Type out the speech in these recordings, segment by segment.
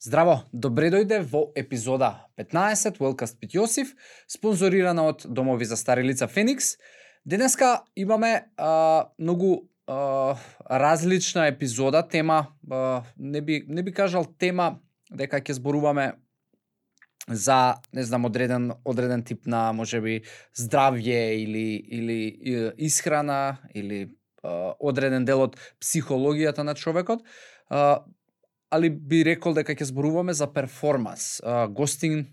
Здраво, добре дојде во епизода 15 Wellcast Пит Јосиф, спонзорирана од Домови за стари лица Феникс. Денеска имаме многу различна епизода, тема, не би кажал тема дека ќе зборуваме за, не знам, одреден тип на можеби здравје или исхрана или одреден дел од психологијата на човекот. Али би рекол дека ќе зборуваме за перформанс. Гостин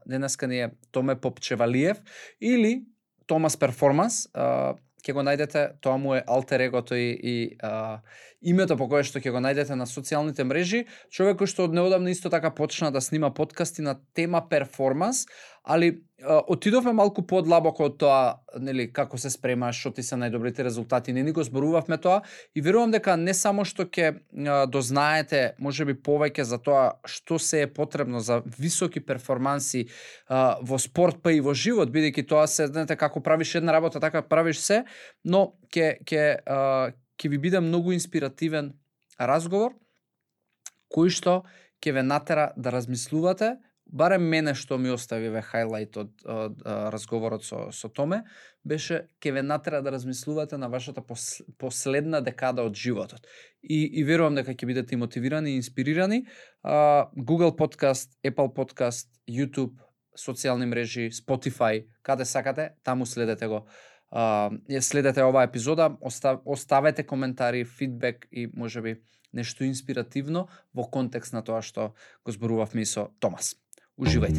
денеска ни е Томе Попчевалиев или Томас Перформанс. Ќе го најдете, тоа му е алтер егото и името по кое што ќе го најдете на социјалните мрежи. Човек кој што од неодамна исто така почна да снима подкасти на тема перформанс, али отидовме малку подлабоко од тоа, нели, како се спремаш, што ти се најдобрите резултати, не ни го зборувавме тоа и верувам дека не само што ќе дознаете можеби повеќе за тоа што се е потребно за високи перформанси во спорт па и во живот, бидејќи тоа се, знаете, како правиш една работа, така правиш се, но ќе ви биде многу инспиративен разговор кој што ќе ве натера да размислувате. Барем мене што ми остави хајлајт од разговорот со Томе, беше ќе ве натера да размислувате на вашата последна декада од животот. И верувам дека ќе бидете и мотивирани и инспирирани. Google Podcast, Apple Podcast, YouTube, социјални мрежи, Spotify, каде сакате, таму следете го. Следете оваа епизода, оставете коментари, фидбек и можеби нешто инспиративно во контекст на тоа што го зборувавме и со Томас. Уживајте.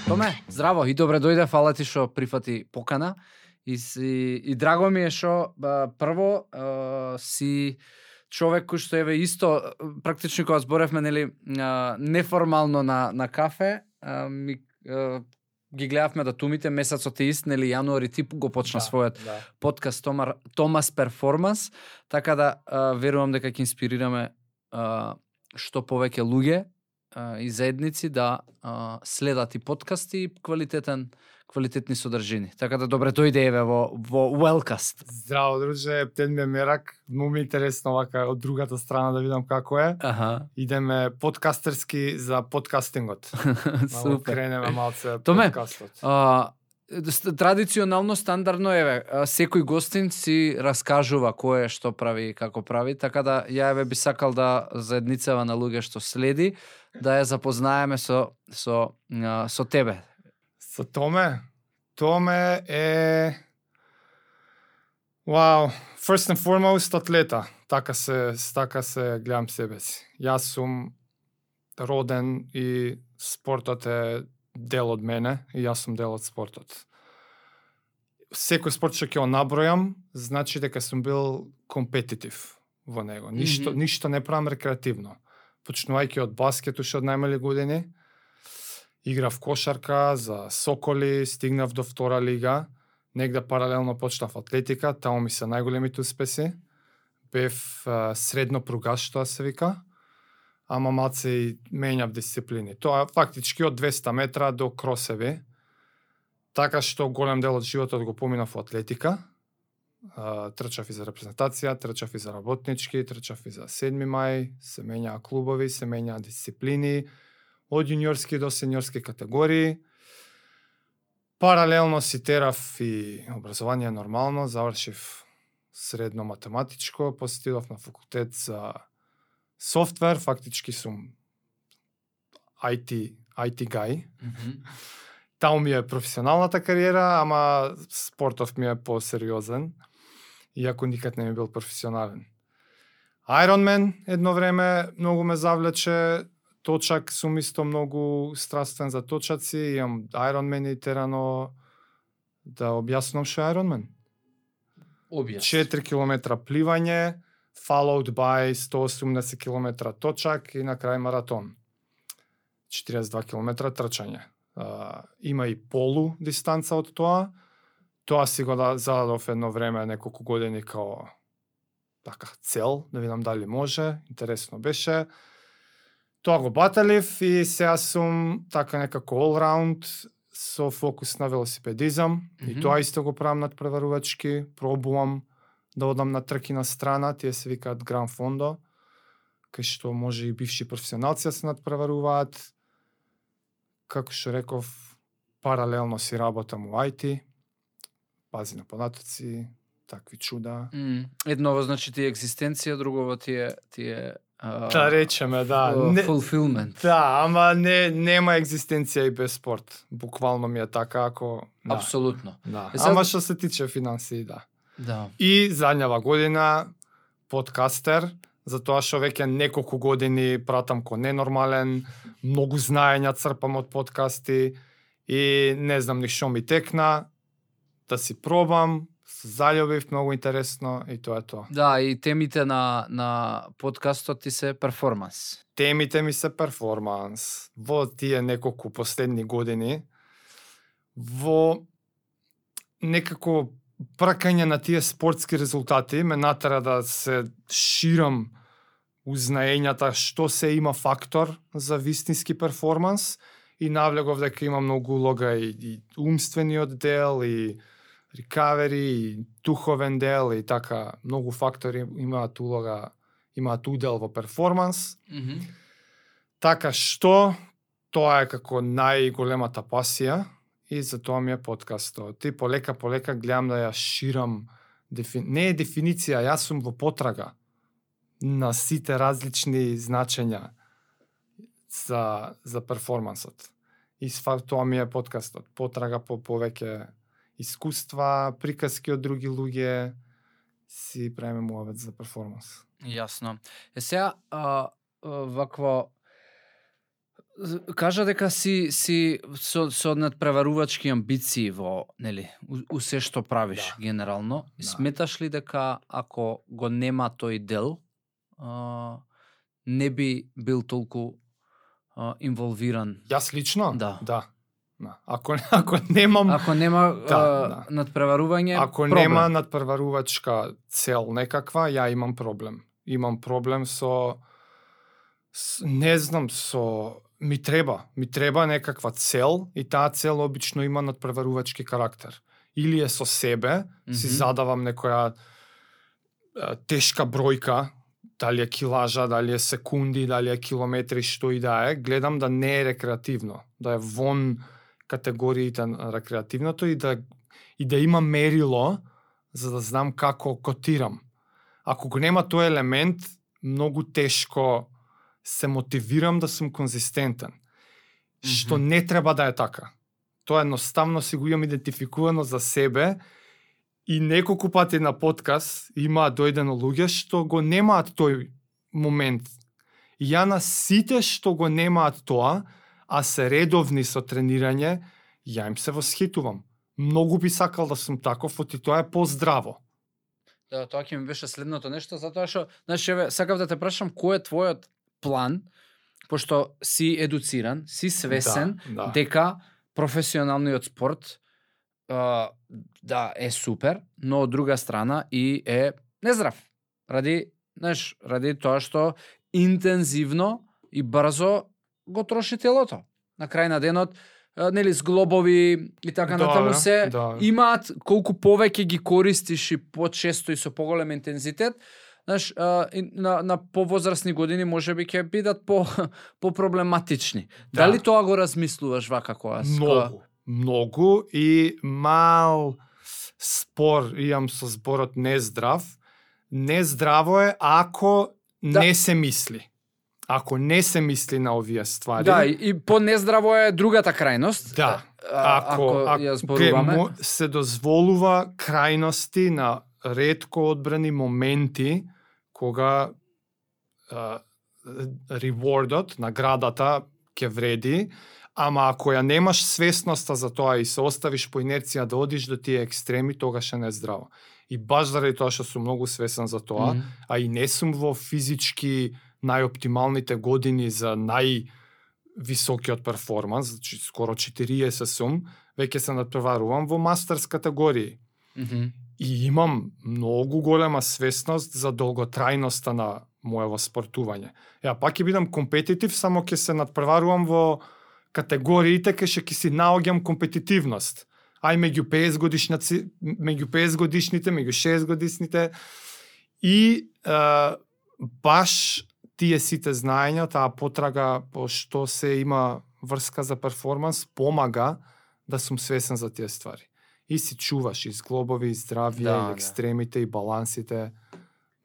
Томе, здраво и добре дојде, фала ти што прифати покана. И драго ми е што прво си човек кој што еве исто практично кога зборевме, нели, неформално на кафе, ги гледавме датумите, месецот е ист, нели, јануари ти го почна својот подкаст Томас Перформанс, така да верувам дека ќе инспирираме што повеќе луѓе и заедници да следат и подкасти и квалитетни содржини. Така да добре дојде еве во Wellcast. Здраво, друже, птен ми е мерак. Му ми интересно вака од другата страна да видам како е. Идеме подкастерски за подкастингот. Супер. Кренеме малце Томе, подкастот. Традиционално, стандардно, еве, секој гостин си раскажува кој е, што прави и како прави, така да ја еве би сакал да заедницава на луѓе што следи, да ја запознаеме со тебе. Со Томе? Томе е... Wow, first and foremost атлета. Така се гледам себе си. Јас сум роден и спортот е дел од мене и јас сум дел од спортот. Секој спорт што ќе го набројам, значи дека сум бил компетитив во него. Ништо не правам рекреативно. Почнувајќи од баскет уште од најмали години, играв кошарка за Соколи, стигнав до втора лига, негде паралелно почнав атлетика, таму ми се најголемите успеси. Бев средно пругаш, тоа се вика, ама малце и менјав дисциплини. Тоа фактички од 200 метра до кросеви, така што голем дел од животот го поминав во атлетика. Трчав и за репрезентација, трчав и за работнички, трчав и за 7 мај, се менјаа клубови, се менјаа дисциплини, од јуниорски до сениорски категории. Паралелно си терав и образование нормално, завршив средно математичко, после отидов на факултет за софтвер, фактички сум IT guy. Таму ми е професионалната кариера, ама спортов ми е посериозен, иако никад не ми бил професионален. Ironman едно време многу ме завлече, точак сум исто многу страствен за точаци, имам Ironman и терано да објаснам што е Ironman. 4 километра пливање, followed by 180 километра точак и на крај маратон. 42 километра трчање. Има и полу дистанца од тоа. Тоа си го зададов едно време, неколку години као така цел, да видам дали може, интересно беше. Тоа го баталив и сега сум така некако all round со фокус на велосипедизам, и тоа исто го правам надпреварувачки, пробувам да одам на трки на страна, тие се викаат Гран Фондо, кај што може и бивши професионалци да се надпреваруваат. Како што реков, паралелно си работам у IT, пази на податоци, такви чуда. Едново значи ти екзистенција, другово ти е Да речеме, да. Fulfillment. Да, ама нема екзистенција и без спорт. Буквално ми е така, ако... Да. Апсолутно. Да. Сега... Ама што се тиче финансии, да. Да. И задњава година подкастер, затоа што веќе неколку години пратам ко ненормален, многу знаења црпам од подкасти и не знам ни што ми текна, да си пробам, се заљубив, многу интересно и тоа е тоа. Да, и темите на подкастот ти се перформанс. Темите ми се перформанс. Во тие неколку последни години, во некако пракање на тие спортски резултати ме натера да се ширам узнаењата што се има фактор за вистински перформанс и навлегов дека има многу улога и умствениот дел, и recovery, и духовен дел, и така многу фактори имаат улога, имаат удел во перформанс. Така што тоа е како најголемата пасија и за тоа ми е подкастот. И полека гледам да ја ширам, не е дефиниција, јас сум во потрага на сите различни значења за перформансот. И тоа ми е подкастот. Потрага по повеќе искуства, приказки од други луѓе, си правиме муавет за перформанс. Јасно. Сега, вакво, кажа дека си со надпреварувачки амбиции во, нели, у се што правиш генерално. Да. Сметаш ли дека ако го нема тој дел, не би бил толку инволвиран? Јас лично? Да. Ако немам... Ако нема надпреварување, ако проблем. нема надпреварувачка цел некаква, ја имам проблем. Имам проблем со не знам, ми треба некаква цел и таа цел обично има надпреварувачки карактер. Или е со себе, си задавам некоја тешка бројка, дали е килажа, дали е секунди, дали е километри, што и да е, гледам да не е рекреативно, да е вон категориите на рекреативното и да има мерило за да знам како котирам. Ако го нема тој елемент, многу тешко се мотивирам да сум конзистентен. Што не треба да е така. Тоа едноставно си го имам идентификувано за себе и неколку пати на подкаст има дојдено луѓе што го немаат тој момент. И ја на сите што го немаат тоа, а се редовни со тренирање, ја им се восхитувам. Многу би сакал да сум таков, оти тоа е поздраво. Да, тоа ќе ми беше следното нешто, затоа што, значи, сакав да те прашам кој е твојот план, пошто си едуциран, си свесен дека професионалниот спорт е супер, но од друга страна и е нездрав. Ради тоа што интензивно и брзо го троши телото. На крај на денот, нели, зглобови и така натаму се имаат, колку повеќе ги користиш и почесто и со поголем интензитет, на повозрасни години можеби ќе бидат по-проблематични. Дали тоа го размислуваш вака кога? Многу и мал спор имам со зборот нездрав. Нездраво е ако не се мисли. Ако не се мисли на овие ствари. Да, и по-нездраво е другата крајност. Да. Ако ја зборуваме, се дозволува крајности на ретко одбрани моменти кога рewardот, наградата ќе вреди, ама ако ја немаш свесноста за тоа и се оставиш по инерција да одиш до тие екстреми, тогаш е нездраво. И баш заради тоа што сум многу свесен за тоа, а и не сум во физички најоптималните години за највисокиот перформанс, значи скоро 40 сум, веќе се надпреварувам во мастерс категории. И имам многу голема свесност за долготрајноста на моево спортување. Ја пак ќе бидам компетитив, само ќе се надпреварувам во категориите кај што ќе си наоѓам компетитивност. Ај меѓу 50 годишници, меѓу 50 годишните, меѓу 60 годишните и баш тие сите знаења, таа потрага по што се има врска за перформанс, помага да сум свесен за тие ствари. И си чуваш и зглобови, и здравје, и екстремите, и балансите.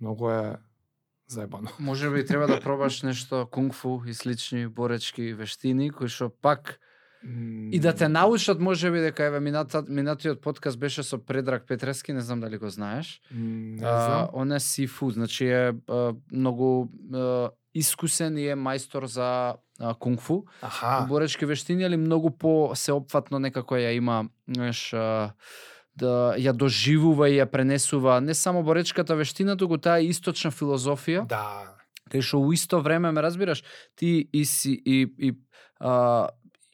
Многу е заебано. Може би треба да пробаш нешто кунг-фу и слични боречки вештини, кои што пак и да те научат, може би, дека еве минатиот подкаст беше со Предраг Петрески, не знам дали го знаеш. Не знам. Он е сифу, значи е многу искусен и е мајстор за кунг-фу. Боречки вештини, али многу по сеопфатно некако ја има, знаеш, да ја доживува и ја пренесува не само боречката вештина, туку таа источна филозофија. Да. Кај што у исто време, ме разбираш, ти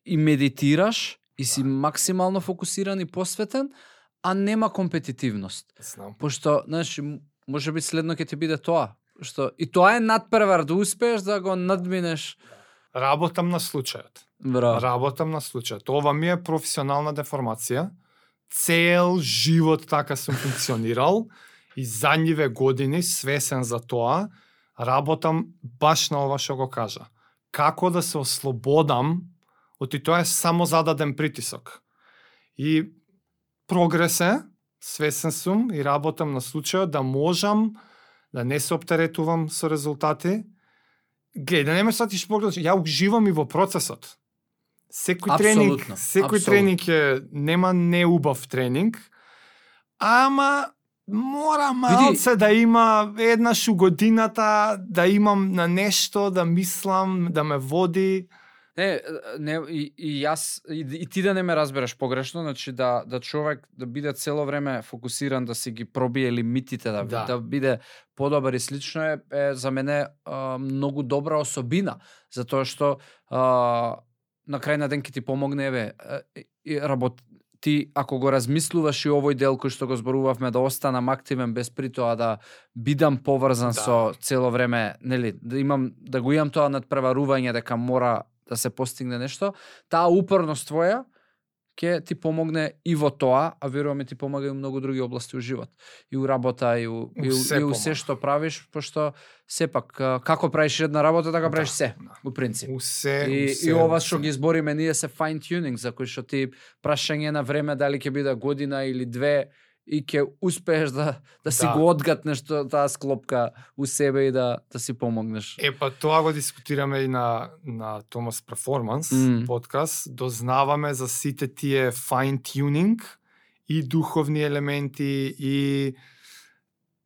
и медитираш, и си максимално фокусиран и посветен, а нема компетитивност. Знам. Пошто, знаеш, може би следно ќе ти биде тоа. Што и тоа е надпревар да успееш да го надминеш. Работам на случајот. Браво. Работам на случајот. Ова ми е професионална деформација. Цел живот така сум функционирал и задниве години свесен за тоа, работам баш на ова што го кажа. Како да се ослободам од тоа е само зададен притисок. И прогрес е, свесен сум и работам на случајот да можам да не се оптеретувам со резултати. Гледај, да не ме сватиш погрешно, ја уживам и во процесот. Секој тренинг е, нема неубав тренинг, ама мора малце да има еднаш у годината, да имам на нешто, да мислам, да ме води. Не, и јас, и ти да не ме разбереш погрешно, значи да човек да биде цело време фокусиран, да си ги пробие лимитите, да биде подобар и слично е за мене многу добра особина, затоа што на крај на ден ќе ти помогне, ти ако го размислуваш и овој дел кој што го зборувавме, да останам активен без при тоа да бидам поврзан со цело време, нели, да го имам тоа надпреварување дека мора да се постигне нешто, таа упорност твоја ќе ти помогне и во тоа, а веруваме ти помага и во многу други области у живот. И у работа, и у се што правиш, пошто сепак, како правиш една работа, така правиш се, у принцип. И ова што ги избориме ние се fine tuning, за кој што ти прашање на време, дали ќе биде година или две, и ќе успееш да си го одгатнеш таа склопка у себе и да си помогнеш. Па тоа го дискутираме и на Thomas Performance подкаст. Дознаваме за сите тие fine tuning и духовни елементи и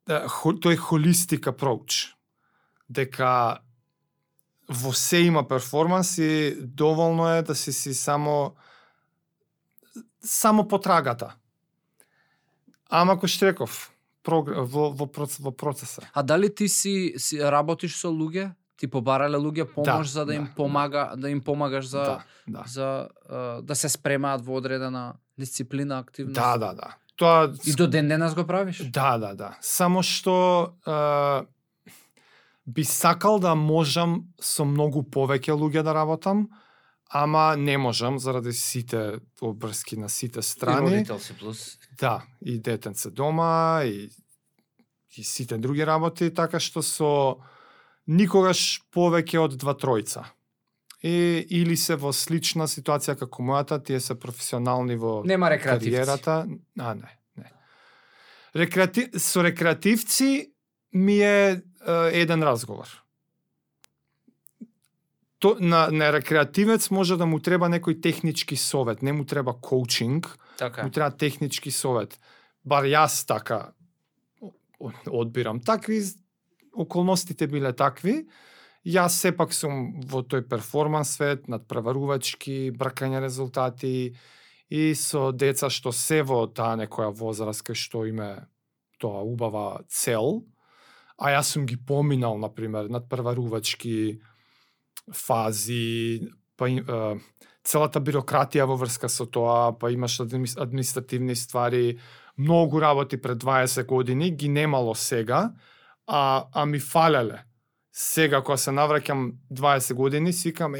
тој holistic approach. Дека во се има перформанс и доволно е да си само потрагата. Ама кој што реков, во процеса. А дали ти си работиш со луѓе? Ти побарале луѓе помош за да им помагаш да се спремаат во одредена дисциплина, активност? Да. Тоа и до ден денес го правиш? Да. Само што би сакал да можам со многу повеќе луѓе да работам, ама не можам заради сите обврски на сите страни. И родител си плюс. Да, и детенце дома, и сите други работи, така што никогаш повеќе од 2-3. Или се во слична ситуација како мојата, тие се професионални во кариерата. Не. Со рекреативци ми е еден разговор. На рекреативец може да му треба некој технички совет, не му треба коучинг, му треба технички совет. Бар јас така одбирам. Такви околностите биле такви. Јас сепак сум во тој перформанс свет, надпреварувачки, бркање резултати и со деца што се во таа некоја возраст кај што име тоа убава цел, а јас сум ги поминал, например, надпреварувачки фази, целата бирократија во врска со тоа, па имаш административни ствари, многу работи пред 20 години, ги немало сега, а ми фалеле. Сега, кога се навраќам 20 години, свикам,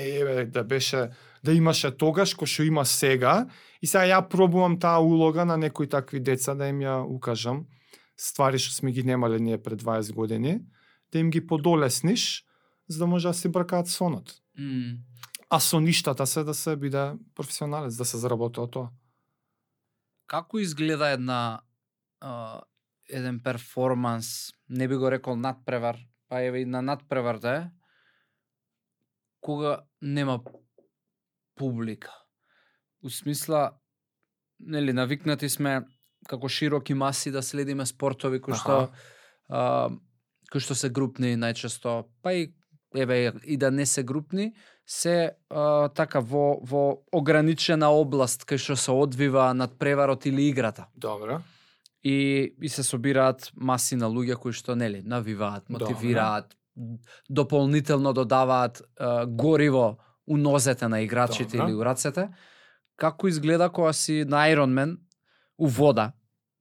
да беше да имаше тогаш кој што има сега, и сега ја пробувам таа улога на некои такви деца да им ја укажам ствари што сме ги немале ние пред 20 години, да им ги подолесниш за да може да се бркаат сонот. А со ништата се да се биде професионалец, да се заработи од тоа. Како изгледа еден перформанс, не би го рекол надпревар, па еве и на надпреварта е, кога нема публика? У смисла, нели, навикнати сме како широки маси да следиме спортови кои што се групни најчесто, па и еве и да не се групни, се така во ограничена област кај што се одвива надпреварот или играта. Добро. И се собираат маси на луѓе кои што нели навиваат, мотивираат, дополнително додаваат гориво у нозете на играчите или у рацете. Како изгледа кога си на Ironman у вода,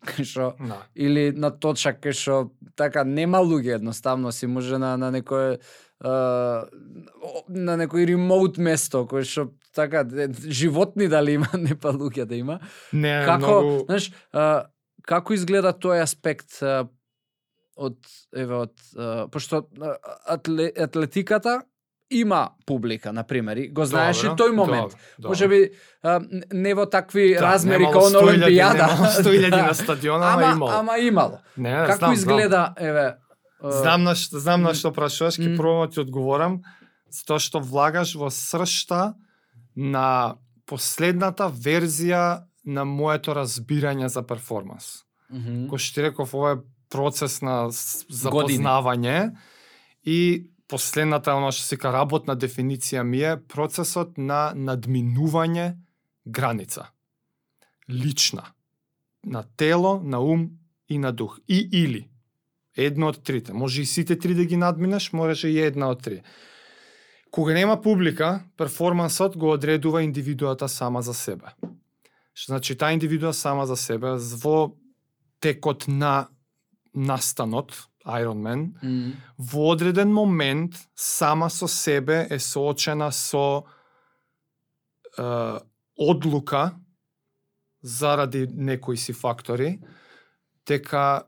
кај што или на точак кај што така нема луѓе, едноставно си може на некој на некој ремоут место кој што така животни дали има, не па луѓе да има. Не, како, многу... знаеш, како изгледа тој аспект пошто атлетиката има публика, например, и го знаеш и тој момент. Може би не во такви размери како на Олимпијада. Немало 100.000 на стадиона, ама имало. Не, како изгледа, еве... Знам на што прашуваш, ќе пробам ти одговорам, затоа што влагаш во сршта на последната верзија на моето разбирање за перформанс. Кој што ти реков, ова е процес на запознавање и последната, оно што се ка работна дефиниција ми е процесот на надминување граница. Лична. На тело, на ум и на дух. И или. Едно од трите. Може и сите три да ги надминеш, може и една од три. Кога нема публика, перформансот го одредува индивидуата сама за себе. Што значи, таа индивидуа сама за себе во текот на настанот, Ironman, во одреден момент сама со себе е соочена со одлука заради некои си фактори, дека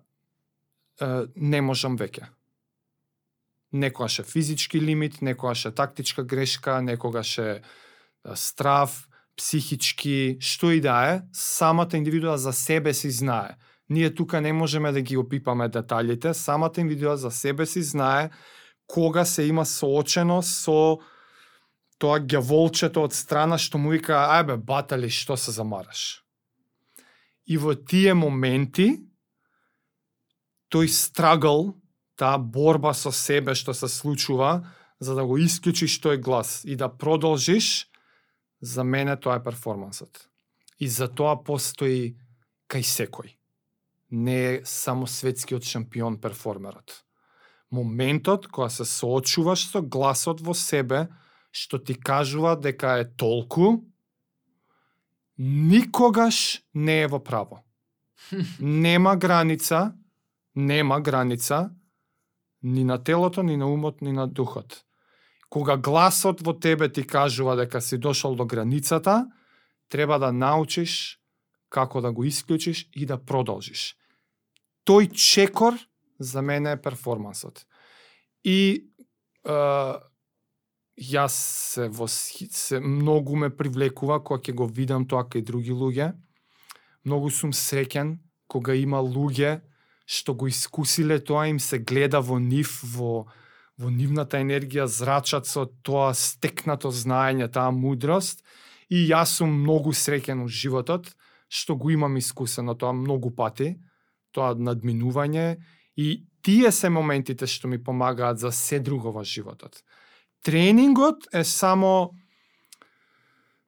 не можам веќе. Некогаш е физички лимит, некогаш е тактичка грешка, некогаш е страв, психички, што и да е, самата индивидуа за себе си знае. Ние тука не можеме да ги опипаме деталите, самата индивидуа за себе си знае кога се има соочено со тоа ѓаволчето од страна што му вика, ајбе, батали, што се замараш. И во тие моменти, тој страгл, таа борба со себе што се случува, за да го исклучиш тој глас и да продолжиш, за мене тоа е перформансот. И за тоа постои кај секој. Не е само светскиот шампион перформерот. Моментот кога се соочуваш со гласот во себе, што ти кажува дека е толку, никогаш не е во право. Нема граница ни на телото, ни на умот, ни на духот. Кога гласот во тебе ти кажува дека си дошол до границата, треба да научиш како да го исклучиш и да продолжиш. Тој чекор за мене е перформансот. И јас се многу ме привлекува кога ќе го видам тоа кај други луѓе. Многу сум среќен кога има луѓе што го искусиле тоа, им се гледа во нив, во нивната енергија, зрачат со тоа стекнато знаење, таа мудрост. И јас сум многу среќен во животот, што го имам искусено тоа многу пати, тоа надминување, и тие се моментите што ми помагаат за се друго во животот. Тренингот е само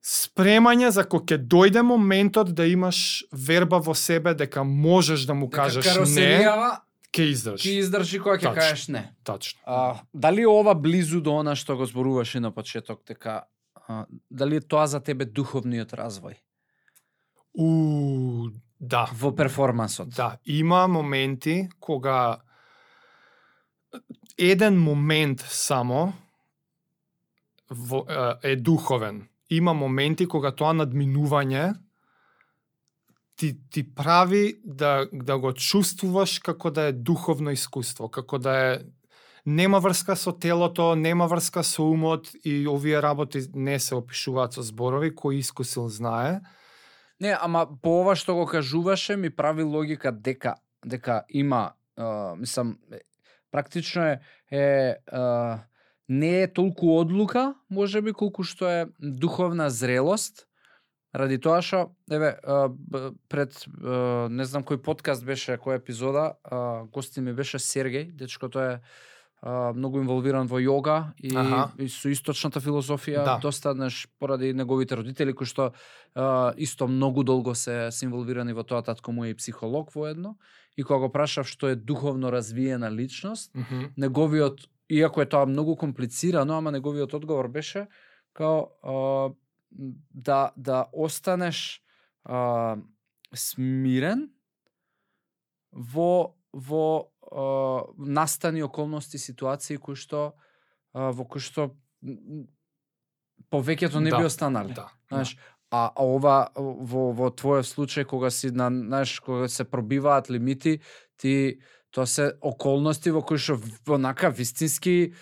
спремање за кога ќе дојде моментот да имаш верба во себе дека можеш да му кажеш не, ќе издржи. Ќе издржи кога ќе кажеш не. Точно. Дали ова близу до она што го зборуваше на почеток, дека дали е тоа за тебе духовниот развој? Да. Во перформансот. Да, има моменти кога еден момент само е духовен има моменти кога тоа надминување ти прави да го чувствуваш како да е духовно искуство, како да е нема врска со телото, нема врска со умот и овие работи не се опишуваат со зборови, кој искусил знае. Не, ама по ова што го кажуваше ми прави логика дека има, мислам, практично не е толку одлука, можеби, колку што е духовна зрелост, ради тоа што, пред, не знам кој подкаст беше, која епизода, гости ми беше Сергеј, дечкото е многу инволвиран во јога и со источната филозофија, Да. доста поради неговите родители, кои што исто многу долго се инволвирани во тоа, татко му е и психолог воедно, и кога го прашав што е духовно развиена личност, неговиот, иако е тоа многу комплицирано, ама неговиот одговор беше као да останеш смирен во настани околности, ситуации кои што во кои што повеќето не би останале. Да. Знаеш, а ова во твојот случај кога си кога се пробиваат лимити, тоа се околности во кои што онака вистински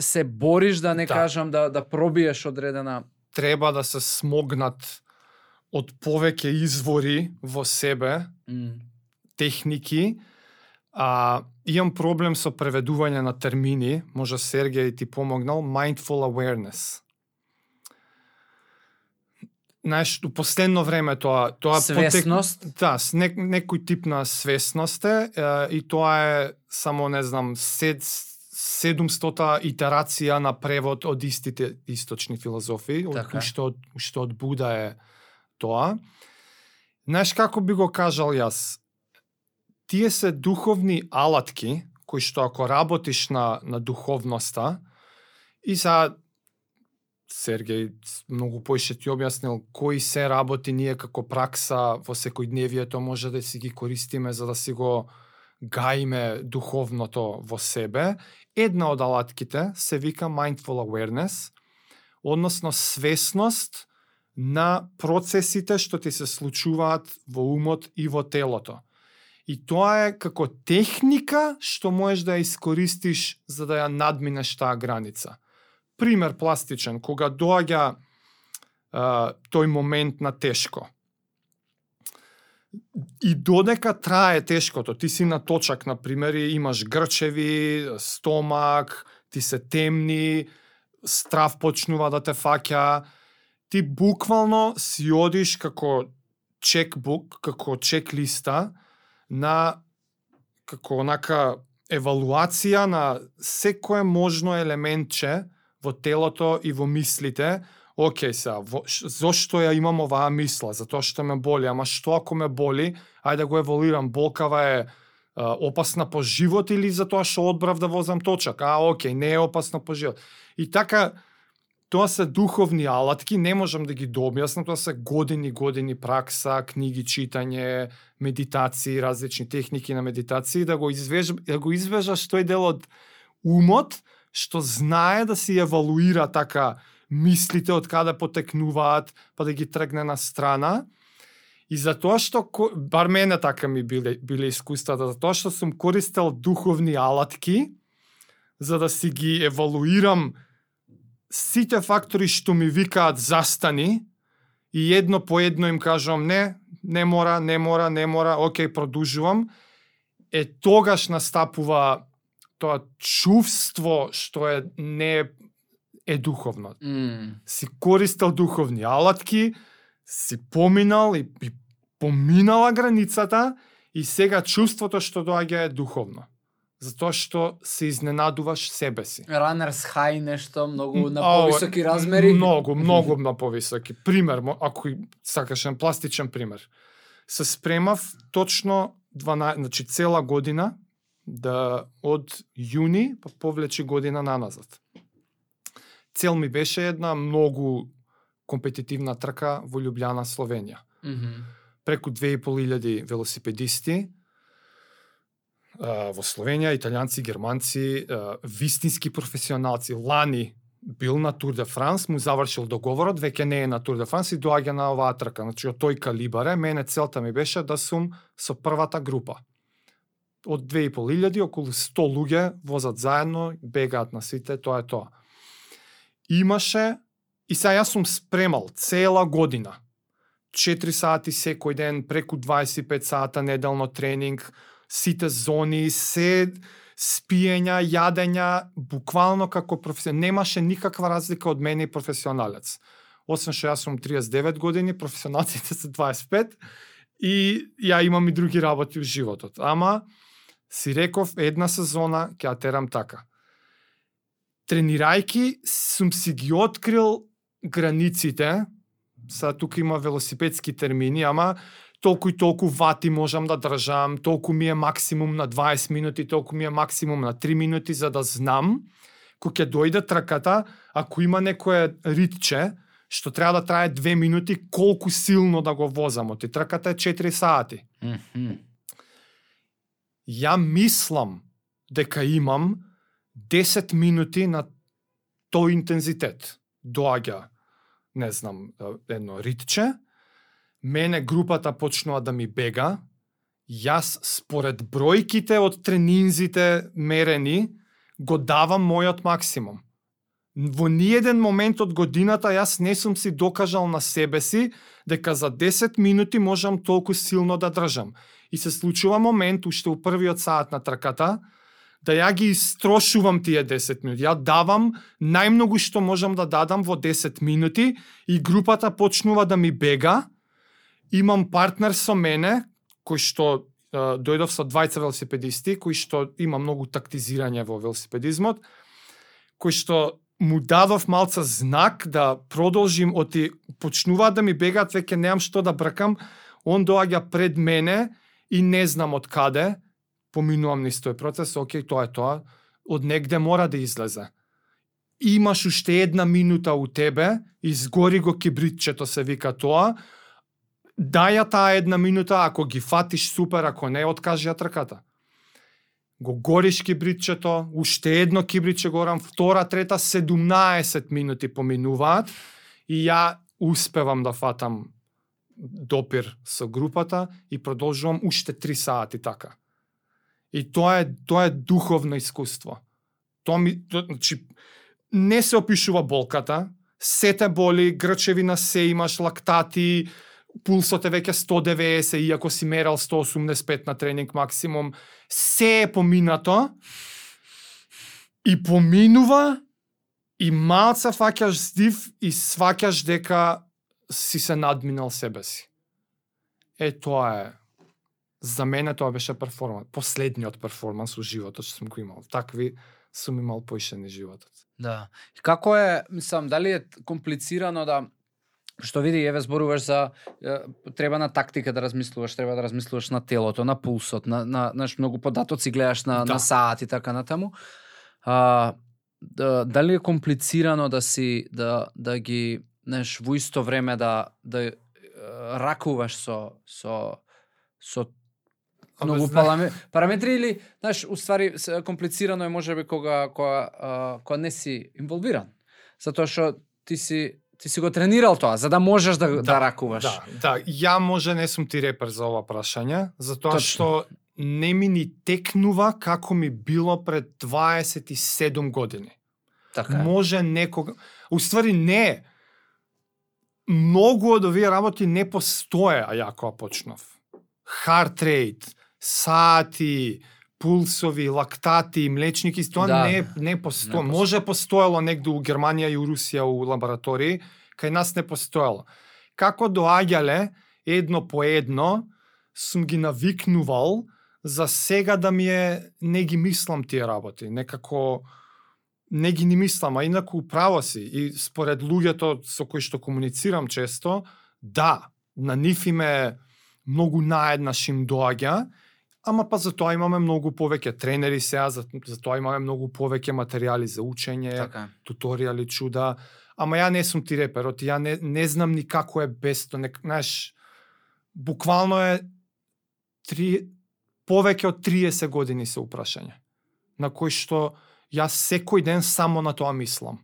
се бориш, да не кажам да пробиеш одредена. Треба да се смогнат од повеќе извори во себе, техники. Имам проблем со преведување на термини, може Сергеј ти помогнал, mindful awareness. Знаеш, у последно време тоа свесност, некој тип на свесност е, и тоа е само, не знам, 700 итерација на превод од истите источни филозофии, што од Буда е тоа. Знаеш како би го кажал јас? Тие се духовни алатки, кои што ако работиш на духовноста, и Сергеј многу поише ти објаснил кои се работи ние како пракса во секојдневието може да си ги користиме за да си го гаиме духовното во себе. Една од алатките се вика mindful awareness, односно свесност на процесите што ти се случуваат во умот и во телото. И тоа е како техника што можеш да ја искористиш за да ја надминеш таа граница. Пример пластичен, кога доаѓа тој момент на тешко. И додека трае тешкото, ти си на точак, например, и имаш грчеви, стомак, ти се темни, страв почнува да те фаќа, ти буквално си одиш како чекбук, како чек-листа, како онака евалуација на секое можно елементче во телото и во мислите. Океј сега, зошто ја имам оваа мисла? Затоа што ме боли. Ама што ако ме боли? Ајде да го еволуирам. Болкава е опасна по живот или затоа што одбрав да возам точак? Океј, не е опасна по живот. И така, тоа се духовни алатки, не можам да ги дообјаснам, тоа се години пракса, книги читање, медитации, различни техники на медитации, да го извежаш тој дел од умот, што знае да си евалуира така мислите од каде потекнуваат, па да ги тргне на страна. И затоа што, бар мене така ми биле искуствата, затоа што сум користел духовни алатки, за да си ги евалуирам сите фактори што ми викаат застани, и едно по едно им кажувам не мора, океј, продолжувам, тогаш настапува тоа чувство што не е духовно. Си користел духовни алатки, си поминал и поминала границата и сега чувството што доаѓа е духовно. Затоа што се изненадуваш себе си. Runners high нешто, многу на повисоки размери. Многу на повисоки. Пример, ако сакаш пластичен пример. Се спремав точно цела година, да од јуни па повлечи година наназад. Цел ми беше една многу компетитивна трка во Љубљана, Словенија. Преку 2500 велосипедисти во Словенија, италијанци, германци, вистински професионалци. Лани бил на Тур де Франс, му завршил договорот, веќе не е на Тур де Франс и доаѓа на оваа трка. Значи, од тој калибар е, мене целта ми беше да сум со првата група. Од 2500, околу 100 луѓе возат заедно, бегаат на сите, тоа е тоа. Имаше, и сега јас сум спремал цела година, 4 сати секој ден, преку 25 сата неделно тренинг, сите зони, се спиења, јадења, буквално како професионалец. Немаше никаква разлика од мене и професионалец. Освен што јас сум 39 години, професионалците се 25 и ја имам и други работи во животот. Ама си реков една сезона ќе ја терам така. Тренирајки сум си ги открил границите. Са тука има велосипедски термини, ама толку и толку вати можам да држам, толку ми е максимум на 20 минути, толку ми е максимум на 3 минути, за да знам, кога ќе дојде трката, ако има некое ритче, што треба да трае 2 минути, колку силно да го возам, оти трката е 4 сати. Ја мислам дека имам 10 минути на тој интензитет. Доаѓа, не знам, едно ритче, мене групата почнува да ми бега, јас според бројките од тренинзите мерени, го давам мојот максимум. Во ниеден момент од годината јас не сум си докажал на себе си дека за 10 минути можам толку силно да држам. И се случува момент, уште у првиот саат на трката, да ја ги истрошувам тие 10 минути. Ја давам најмногу што можам да дадам во 10 минути и групата почнува да ми бега. Имам партнер со мене, кој што дојдов со двајца велосипедисти, кој што има многу тактизирање во велосипедизмот, кој што му дадов малца знак да продолжим, оти почнуваат да ми бегаат, веќе немам што да бркам, он доаѓа пред мене и не знам од каде, поминувам низ тој процес, окей, тоа е тоа, од негде мора да излезе. Имаш уште една минута у тебе, изгори го кибритчето, се вика тоа, дај ја таа една минута, ако ги фатиш супер, ако не, откажи ја трката. Го гориш кибритчето, уште едно кибритче горам, втора, трета, 17 минути поминуваат и ја успевам да фатам допир со групата и продолжувам уште 3 сати така. И тоа е духовно искуство. Значи, не се опишува болката, сете боли, грчевина се имаш, лактати, пулсот е веќе 190, иако си мерал 185 на тренинг максимум, се е поминато и поминува и малца фаќаш здив и сваќаш дека си се надминал себе си. Тоа е. За мене тоа беше перформанс. Последниот перформанс во животот што сум го имал. Такви сум имал поишени животот. Да. И како е, мислам, дали е комплицирано да што види, еве зборуваш за треба на тактика да размислуваш, треба да размислуваш на телото, на пулсот, на многу податоци гледаш на саат и така натаму. Дали е комплицирано да ги, знаеш, во исто време да ракуваш со многу параметри или, знаеш, уствари комплицирано е можеби кога не си инволвиран. Затоа што ти си го тренирал тоа, за да можеш да ракуваш. Да, ја може не сум ти репер за ова прашање, затоа што не ми ни текнува како ми било пред 27 години. Така е. Може некога... Уствари не. Многу од овие работи не постоеа ја кога почнав. Heart rate, сати, пулсови, лактати, млечники, тоа не постои. Може постоело негде у Германија и у Русија у лаборатории, кај нас не постоело. Како доаѓале едно по едно, сум ги навикнувал за сега да ми е, не ги мислам тие работи, некако не ги ни мислам, а инаку право си. И според луѓето со кои што комуницирам често, да, на нив им е многу наеднаш им доаѓа, ама па за тоа имаме многу повеќе тренери сега, за тоа имаме многу повеќе материјали за учење, така, туторијали, чуда. Ама ја не сум ти реперот, ја не знам ни како е без тоа. Знаеш, буквално е повеќе од 30 години се упрашање, на кој што Јас секој ден само на тоа мислам.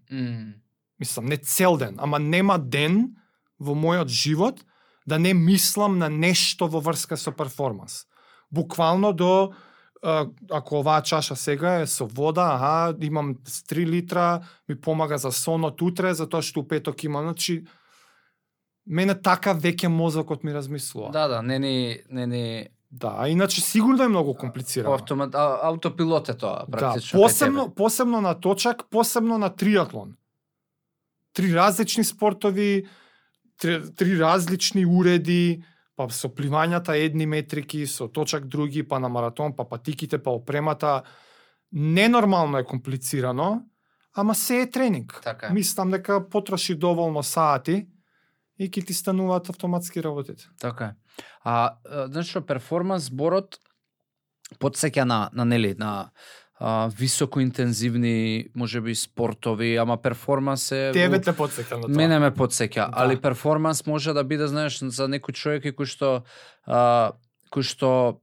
Мислам, не цел ден, ама нема ден во мојот живот да не мислам на нешто во врска со перформанс. Буквално до, ако оваа чаша сега е со вода, имам 3 литра, ми помага за сонот утре, затоа што у петок имам, значи, мене така веќе мозокот ми размислува. Да, не ни... Да, иначе сигурно е многу комплицирано. Аутопилот е тоа, практично. Да, посебно на точак, посебно на триатлон. 3 различни спортови, 3 различни уреди, па со пливањата едни метрики, со точак други, па на маратон, па патиките, па опремата. Ненормално е комплицирано, ама се е тренинг. Така е. Мислам дека потроши доволно сати и ќе ти стануваат автоматски работите. Така е. Значи, перформанс зборот потсеќа на високоинтензивни, можеби спортови, ама перформанс е... Тебе те потсеќа на тоа. Мене ме потсеќа, али перформанс може да биде, знаеш, за некој човек кој што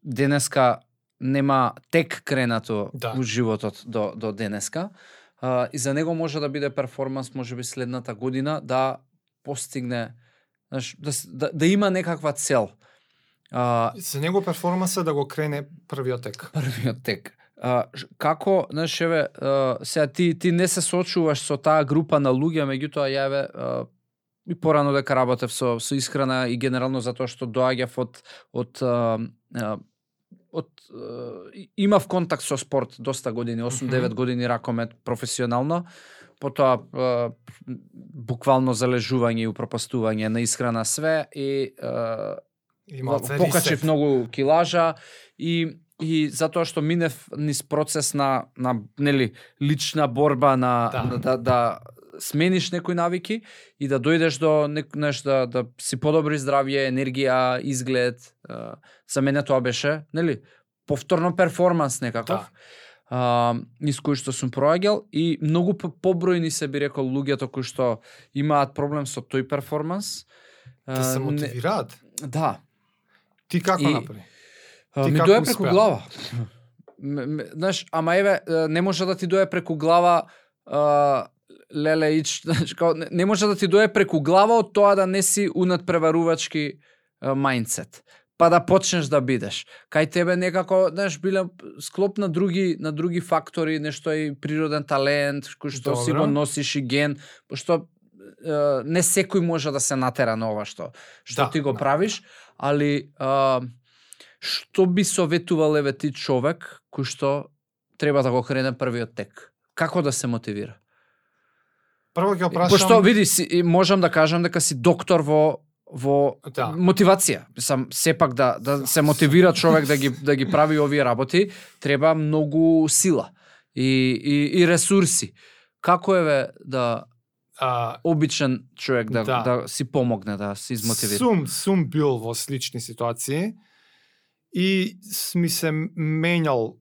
денеска нема тек кренато у животот до денеска, и за него може да биде перформанс, можеби следната година, да постигне, знаеш, да има некаква цел. За него перформанс е да го крене првиот тек. Првиот тек. Како, знаеш, сега ти не се соочуваш со таа група на луѓе, меѓутоа јаве и порано дека работев со исхрана и генерално затоа што доаѓав имав контакт со спорт доста години, 8-9 години ракомет професионално, потоа буквално залежување и упропастување на исхрана све и покачив многу килажа и затоа што минев низ процес на нели лична борба да смениш некои навики и да дојдеш до да си подобри здравје, енергија, изглед. За мене тоа беше, нели, повторно перформанс некаков. Низ кој што сум проаѓал и многу побројни се би рекол луѓето кои што имаат проблем со тој перформанс. Да се мотивираат? Да. Ти како направи? Ми дое преку глава. Знаеш, ама еве, не може да ти дое преку глава леле ич, не може да ти дое преку глава од тоа да не си унадпреварувачки мајндсет. Па да почнеш да бидеш. Кај тебе некако, знаеш, биле склоп на други фактори, нешто и природен талент, кој што си го носиш и ген, пошто не секој може да се натера на ова што ти го правиш, али што би советувал еве ти човек кој што треба да го крене првиот тек? Како да се мотивира? Прво ќе опрашам... Пошто види, можам да кажам дека си доктор во мотивација. Сам сепак да се мотивира човек да ги прави овие работи, треба многу сила и ресурси. Како еве да обичен човек да си помогне, да се измотивира? Сум бил во слични ситуации и ми се менјал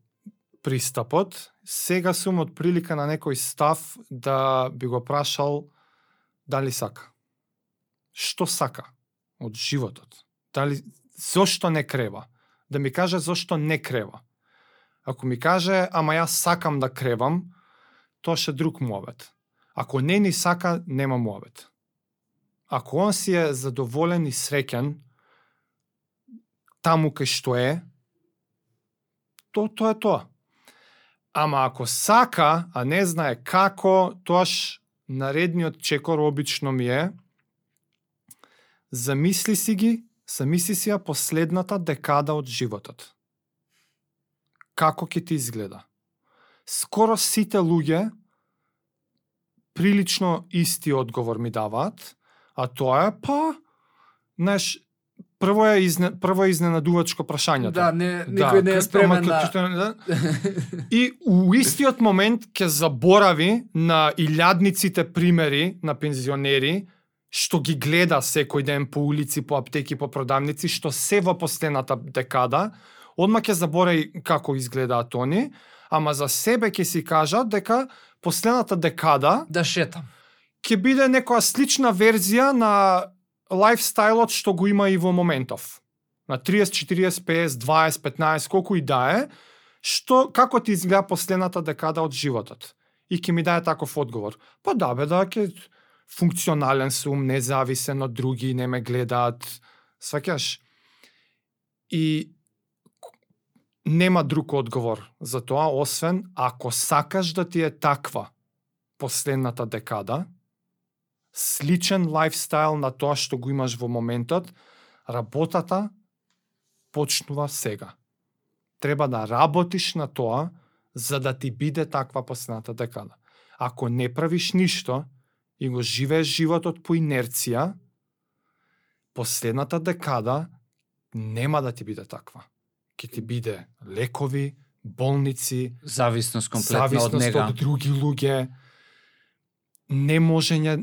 пристапот. Сега сум од прилика на некој став да би го прашал дали сака. Што сака од животот? Зошто не крева? Да ми каже зошто не крева. Ако ми каже, ама јас сакам да кревам, тоа ше друг муавет. Ако не ни сака, нема муавет. Ако он си е задоволен и среќен таму кај што е, тоа е тоа. Ама ако сака, а не знае како, тоаш наредниот чекор обично ми е замисли си ја последната декада од животот. Како ќе ти изгледа? Скоро сите луѓе прилично исти одговор ми даваат, а тоа е, знаеш, прво е изненадувачко прашањето. Да, никој не е спремен И у истиот момент ќе заборави на илјадниците примери на пензионери што ги гледа секој ден по улици, по аптеки, по продавници, што се во последната декада, одма ќе заборави како изгледаат они, ама за себе ќе си кажат дека последната декада да шетам. Ќе биде некоја слична верзија на лайфстайлот што го има и во моментов. На 30, 40, 50, 20, 15, колку и да е, Како ти изгледа последната декада од животот? И ќе ми даде таков одговор. Па да бе, да, ќе функционален сум, независен од други, не ме гледаат, сваќаш? И нема друг одговор за тоа, освен ако сакаш да ти е таква последната декада, сличен лајфстайл на тоа што го имаш во моментот, работата почнува сега. Треба да работиш на тоа, за да ти биде таква последната декада. Ако не правиш ништо и го живееш животот по инерција, последната декада нема да ти биде таква. Ќе ти биде лекови, болници, зависност комплетна од нега, од други луѓе, неможење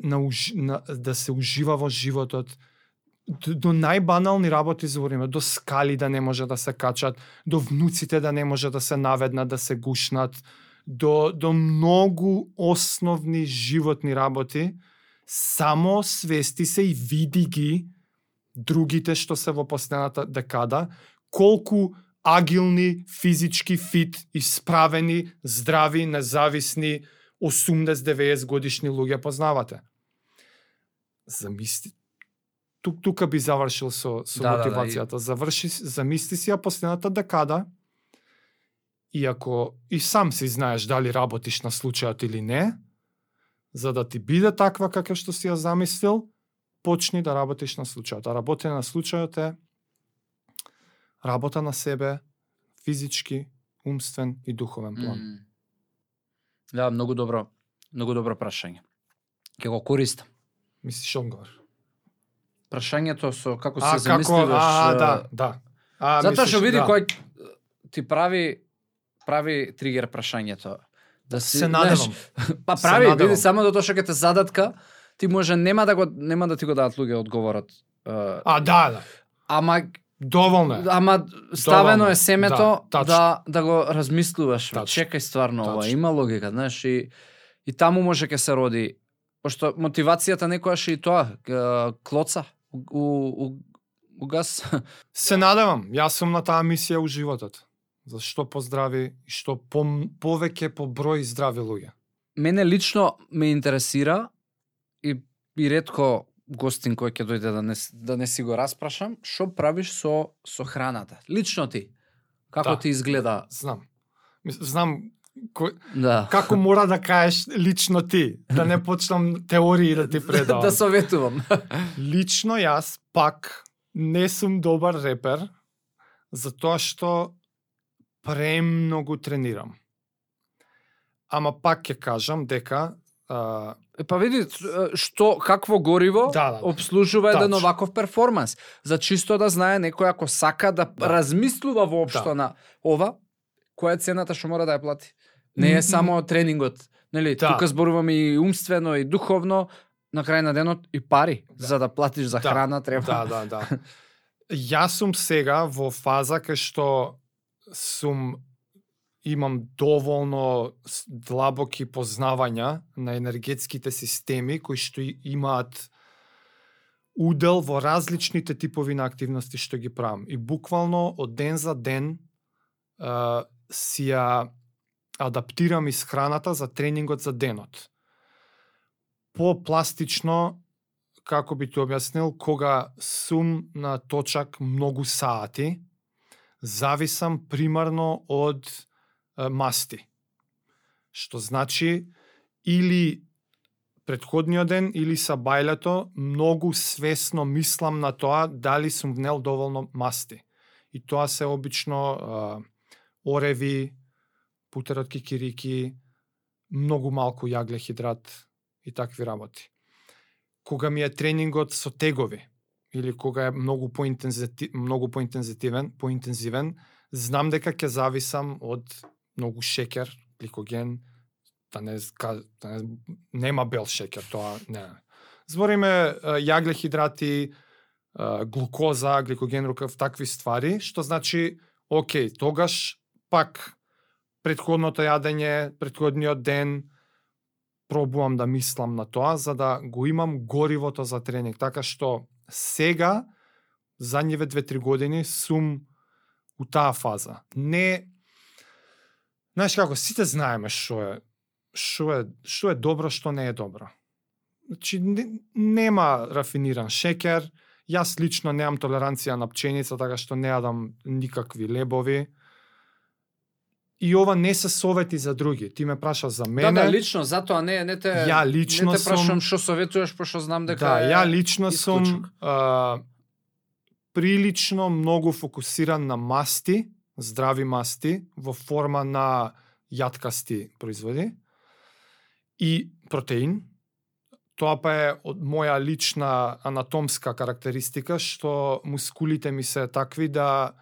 да се ужива во животот, до најбанални работи збориме, до скали да не може да се качат, до внуците да не може да се наведнат, да се гушнат, до многу основни животни работи, само свести се и види ги другите што се во последната декада, колку агилни, физички фит, исправени, здрави, независни, 80-90 годишни луѓе познавате. Замисли, тука би завршил со мотивацијата. Замисли си ја последната декада, и ако и сам си знаеш дали работиш на случајот или не, за да ти биде таква како што си ја замислил, почни да работиш на случајот. А работење на случајот е работа на себе, физички, умствен и духовен план. Да, многу добро прашање. Ќе го користам. Мислиш одговор? Прашањето со како се замисливаш. Да. Затоа што види кој ти прави тригер прашањето. Да се надевам. Па прави, види само до тоа што ќе те задатка, ти може нема да ти го дадат луѓе одговорот. Да. Ама доволно е. Ама ставено е семето да го размислуваш. Чекај стварно ова, има логика, знаеш, и таму може ќе се роди, пошто мотивацијата некојаш и тоа клоца у газ. Се надевам, јас сум на таа мисија у животот. За што поздрави и што повеќе по број здрави луѓе. Мене лично ме интересира и ретко гостин кој ќе дојде да не си го распрашам, што правиш со храната? Лично ти. Како ти изгледа? Знам како мора да кажеш лично ти, да не почнам теории да ти предавам. Да советувам. Лично јас пак не сум добар репер, затоа што премногу тренирам. Ама пак ќе кажам дека па види какво гориво обслужува еден оваков перформанс. За чисто да знае некој ако сака да размислува воопшто на ова, која е цената што мора да ја плати. Не е само тренингот, нели? Тука зборуваме и умствено и духовно, на крај на денот и пари за да платиш за храна треба. Да. Јас сум сега во фаза кај што имам доволно длабоки познавања на енергетските системи кои што имаат удел во различните типови на активности што ги правам. И буквално од ден за ден си ја адаптирам исхраната за тренингот за денот. По-пластично, како би ти објаснил, кога сум на точак многу сати, зависам примарно од масти. Што значи или претходниот ден или сабајлето многу свесно мислам на тоа дали сум внел доволно масти. И тоа се обично ореви, путер од кикирики, многу малку јаглехидрат и такви работи. Кога ми е тренингот со тегови или кога е многу поинтензивен, знам дека ќе зависам од многу шекер, гликоген, нема бел шекер, тоа не. Збориме јаглехидрати, глукоза, гликоген, рукав, такви ствари, што значи, окей, тогаш пак претходното јадење, претходниот ден, пробувам да мислам на тоа, за да го имам горивото за тренинг. Така што сега, задниве 2-3 години, сум у таа фаза. Не Знаеш како, сите знаеме што е добро, што не е добро. Значи, нема рафиниран шекер, јас лично немам толеранција на пченица, така што не јадам никакви лебови. И ова не се совети за други. Ти ме праша за мене. Да, лично, затоа не те ја лично не те прашам сум, што советуваш, пошто знам дека да, е ја лично исклучок. сум прилично многу фокусиран на масти, здрави масти во форма на јаткасти производи и протеин. Тоа па е од моја лична анатомска карактеристика, што мускулите ми се такви да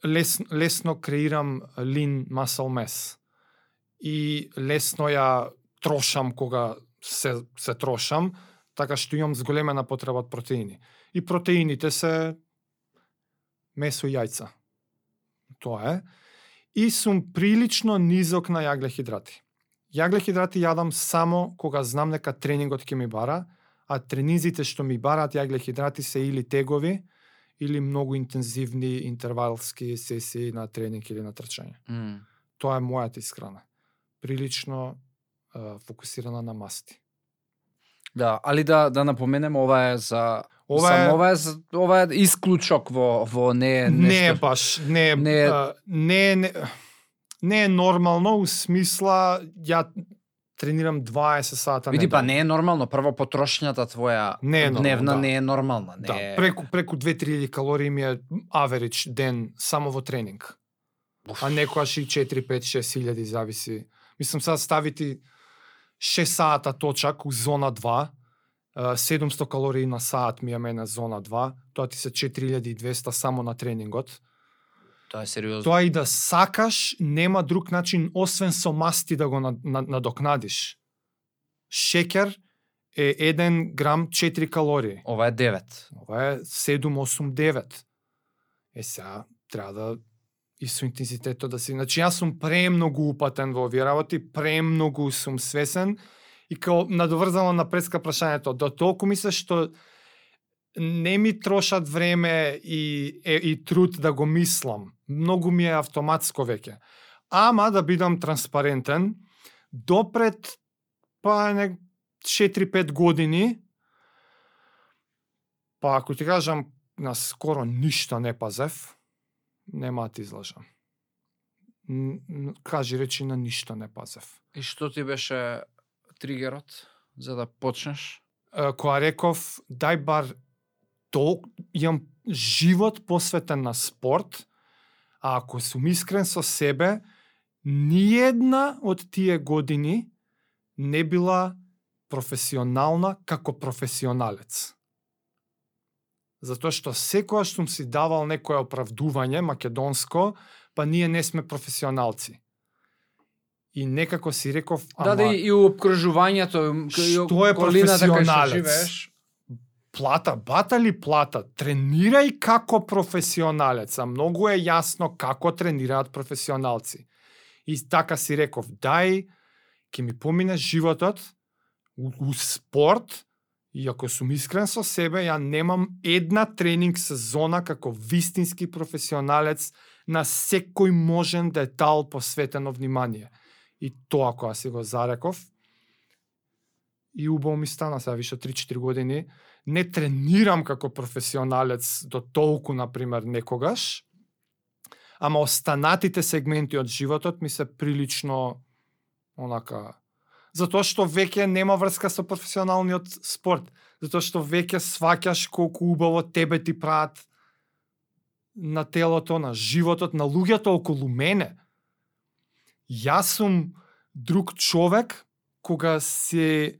лесно креирам lean muscle mass. И лесно ја трошам кога се трошам, така што имам зголемена потреба од протеини. И протеините се месо и јајца. Тоа е. И сум прилично низок на јаглехидрати. Јаглехидрати јадам само кога знам дека тренингот ќе ми бара, а тренизите што ми бараат јаглехидрати се или тегови, или многу интензивни интервалски сесии на тренинг или на трчање. Тоа е мојата исхрана. Прилично фокусирана на масти. Да, али да напоменем, ова е за ова е исклучок во не е нешто. Не е баш, не е нормално, у смисла ја тренирам 20 сата Види, недела. па не е нормално, прво потрошњата твоја Не е нормално, дневна да. не е нормална, не Да, е... преку 2-3 калории ми е аверидж ден само во тренинг. А некојаш и 4-5-6 илјади зависи. Мислам, сега ставити 6 сата точак у зона 2, 700 калории на саат ми е мене зона 2, тоа ти се 4200 само на тренингот. Тоа е сериозно. Тоа и да сакаш, нема друг начин освен со масти да го надокнадиш. Шекер е 1 грам 4 калории. Ова е 9. Ова е 7, 8, 9. Сега треба да и со интензитетот да си... Значи, јас сум премногу упатен во овие работи, премногу сум свесен и као надоврзано на предска прашањето, до толку мислиш што не ми трошат време и труд да го мислам. Многу ми е автоматско веќе. Ама да бидам транспарентен, допред 4-5 години, па ако ти кажам, на скоро ништо не пазев, нема да ти излажам. Кажи речи, на ништо не пазев. И што ти беше тригерот за да почнеш? Која реков, дај бар имам живот посветен на спорт, а ако сум искрен со себе, ниедна од тие години не била професионална како професионалец. Затоа што секојаш сум си давал некое оправдување македонско, па ние не сме професионалци. И некако си реков, ама... Да, и обкружувањето, што е професионалец? Плата, бата ли плата? Тренирај како професионалец, а многу е јасно како тренираат професионалци. И така си реков, дај, ќе ми помине животот у спорт, и ако сум искрен со себе, ја немам една тренинг сезона како вистински професионалец на секој можен детал посветено внимание. И тоа која си го зареков, и убаво ми стана сега више 3-4 години, не тренирам како професионалец до толку, например, некогаш, ама останатите сегменти од животот ми се прилично онака... Затоа што веќе нема врска со професионалниот спорт. Затоа што веќе сваќаш колку убаво тебе ти прават на телото, на животот, на луѓето околу мене. Јас сум друг човек кога си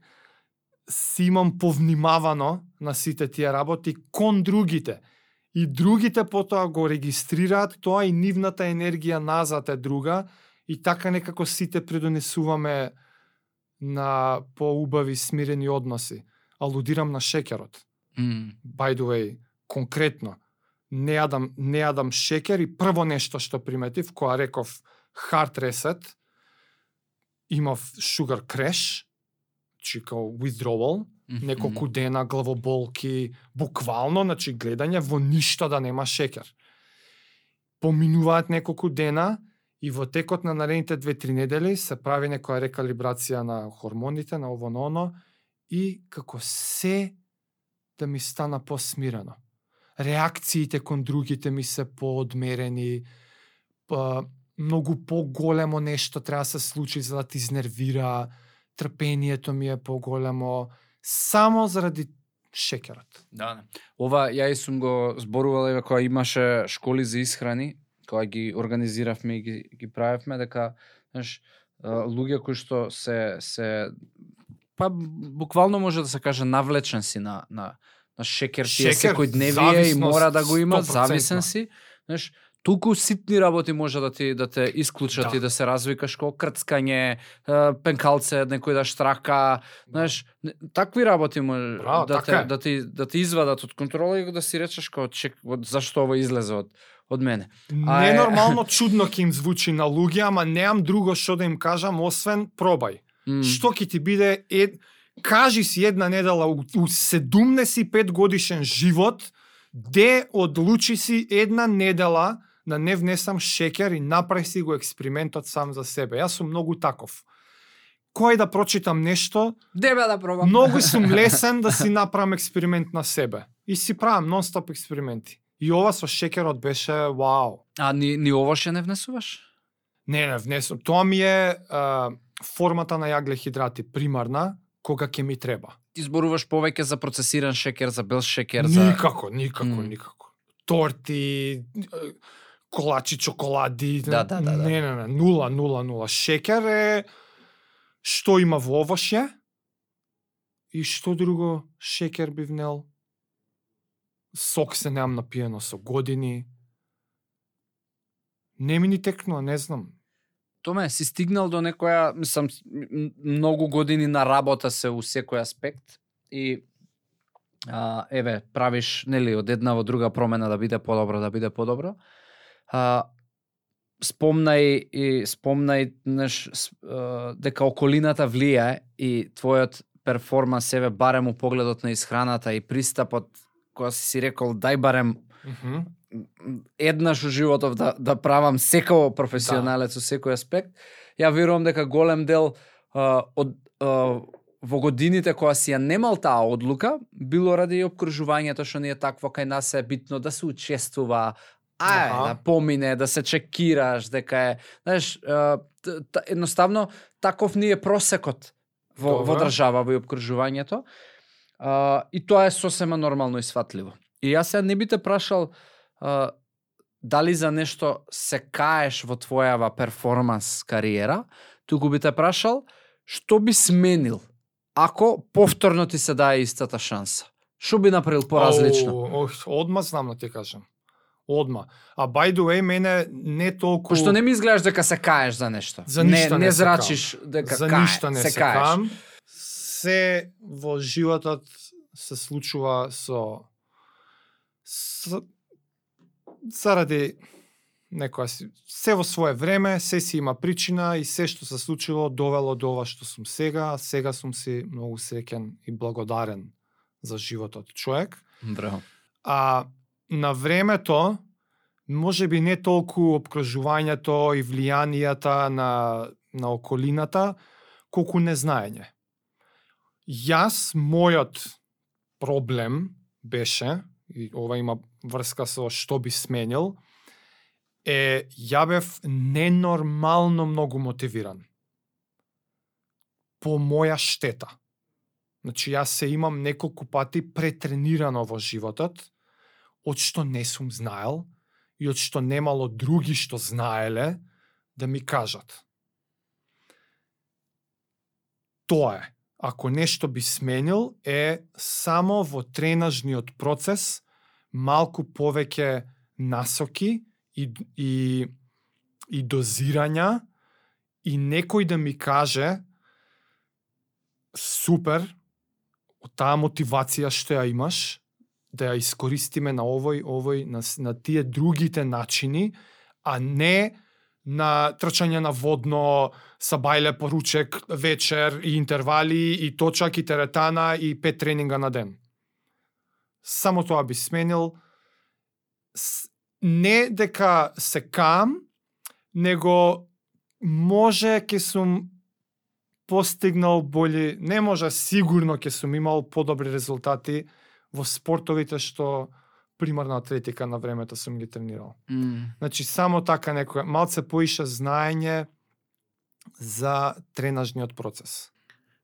имам повнимавано на сите тие работи кон другите. И другите потоа го регистрираат тоа и нивната енергија назад е друга и така некако сите придонесуваме на поубави смирени односи. Алудирам на шекерот. By the way, конкретно, не јадам шекер и прво нешто што приметив, која реков hard reset, имав sugar crash, значи као withdrawal, неколку дена главоболки, буквално, значи гледање во ништо да нема шекер. Поминуваат неколку дена И во текот на наредните 2-3 недели се прави некоја рекалибрација на хормоните, на ово на оно, и како се да ми стана посмирено. Реакциите кон другите ми се поодмерени, многу поголемо нешто треба да се случи за да ти изнервира, трпението ми е поголемо, само заради шекерот. Да. Ова ја и сум го зборувал кога имаше школи за исхрани, кога ги организиравме и ги правевме, дека знаеш, луѓе кои што се па буквално може да се каже навлечен си на шекер, тие секој дневие и мора да го има, 100%. Зависен си, знаеш, толку ситни работи може да те исклучат и да се развикаш, како крцкање, пенкалце, некој да штрака, знаеш, такви работи може да ти извадат од контрола и да си речеш како зашто ова излезе од мене. Ненормално чудно ќе им звучи на луѓе, ама немам друго што да им кажам освен пробај. Што ќе ти биде кажи си една недела у 75 годишен живот, де одлучи си една недела да не внесам шекер и направи си го експериментот сам за себе. Јас сум многу таков. Кој да прочитам нешто, дебе да пробам. Многу сум лесен да си направам експеримент на себе. И си правам нон-стоп експерименти. И ова со шекерот беше вау. А ни ова ше не внесуваш? Не внесувам. Тоа ми е формата на јаглехидрати примарна, кога ќе ми треба. Ти зборуваш повеќе за процесиран шекер, за бел шекер, никако. Торти, колачи, чоколади. Да. Не. 0. Шекер е што има во овошје и што друго шекер би внел. Сок се немам напиено со години. Не ми ни текнува, не знам. Томе, си стигнал до некоја, мислам, многу години на работа се у секој аспект и правиш, нели, од една во друга промена да биде подобро. Спомнај дека околината влијае и твојот перформанс, барем у погледот на исхраната и пристапот, кога си рекол, дај барем еднаш у животов да правам секој професионалец у секој аспект. Ја верувам дека голем дел во годините кога си ја немал таа одлука, било ради опкружувањето што ни е такво, кај нас е битно да се учествува, да помине, да се чекираш, дека е, знаеш, едноставно таков ни е просекот во држава во опкружувањето. И тоа е сосема нормално и сватливо. И јас сега не би те прашал дали за нешто се каеш во твојава перформанс кариера, туку би те прашал што би сменил ако повторно ти се даде истата шанса. Што би направил поразлично? Одма знам да ти кажам. Одма. А by the way, мене не толку... Пошто не ми изгледаш дека се каеш за нешто. За ништо не зрачиш дека за ништо не се каем. Се во животот се случува заради некоја се во свое време, се си има причина и се што се случило довело до ова што сум сега. Сега сум си многу среќен и благодарен за животот човек. Браво. А на времето, може би не толку обкружувањето и влијанијата на околината, колку незнаење. Јас, мојот проблем беше, и ова има врска со што би сменил, ја бев ненормално многу мотивиран. По моја штета. Значи, јас се имам неколку пати претренирано во животот, од што не сум знаел и од што немало други што знаеле да ми кажат. Тоа е. Ако нешто би сменил, е само во тренажниот процес малку повеќе насоки и дозирања и некој да ми каже супер, таа мотивација што ја имаш, да ја искористиме на овој, на тие другите начини, а не на трчање на водно, сабајле по ручек, вечер и интервали, и точак, и теретана, и 5 тренинга на ден. Само тоа би сменил. Не дека се каам, него може ќе сум постигнал бољи, не може, сигурно ќе сум имал подобри резултати во спортовите што примарна атлетика на времето сум ги тренирал. Значи, само така некој, малце поише знаење за тренажниот процес.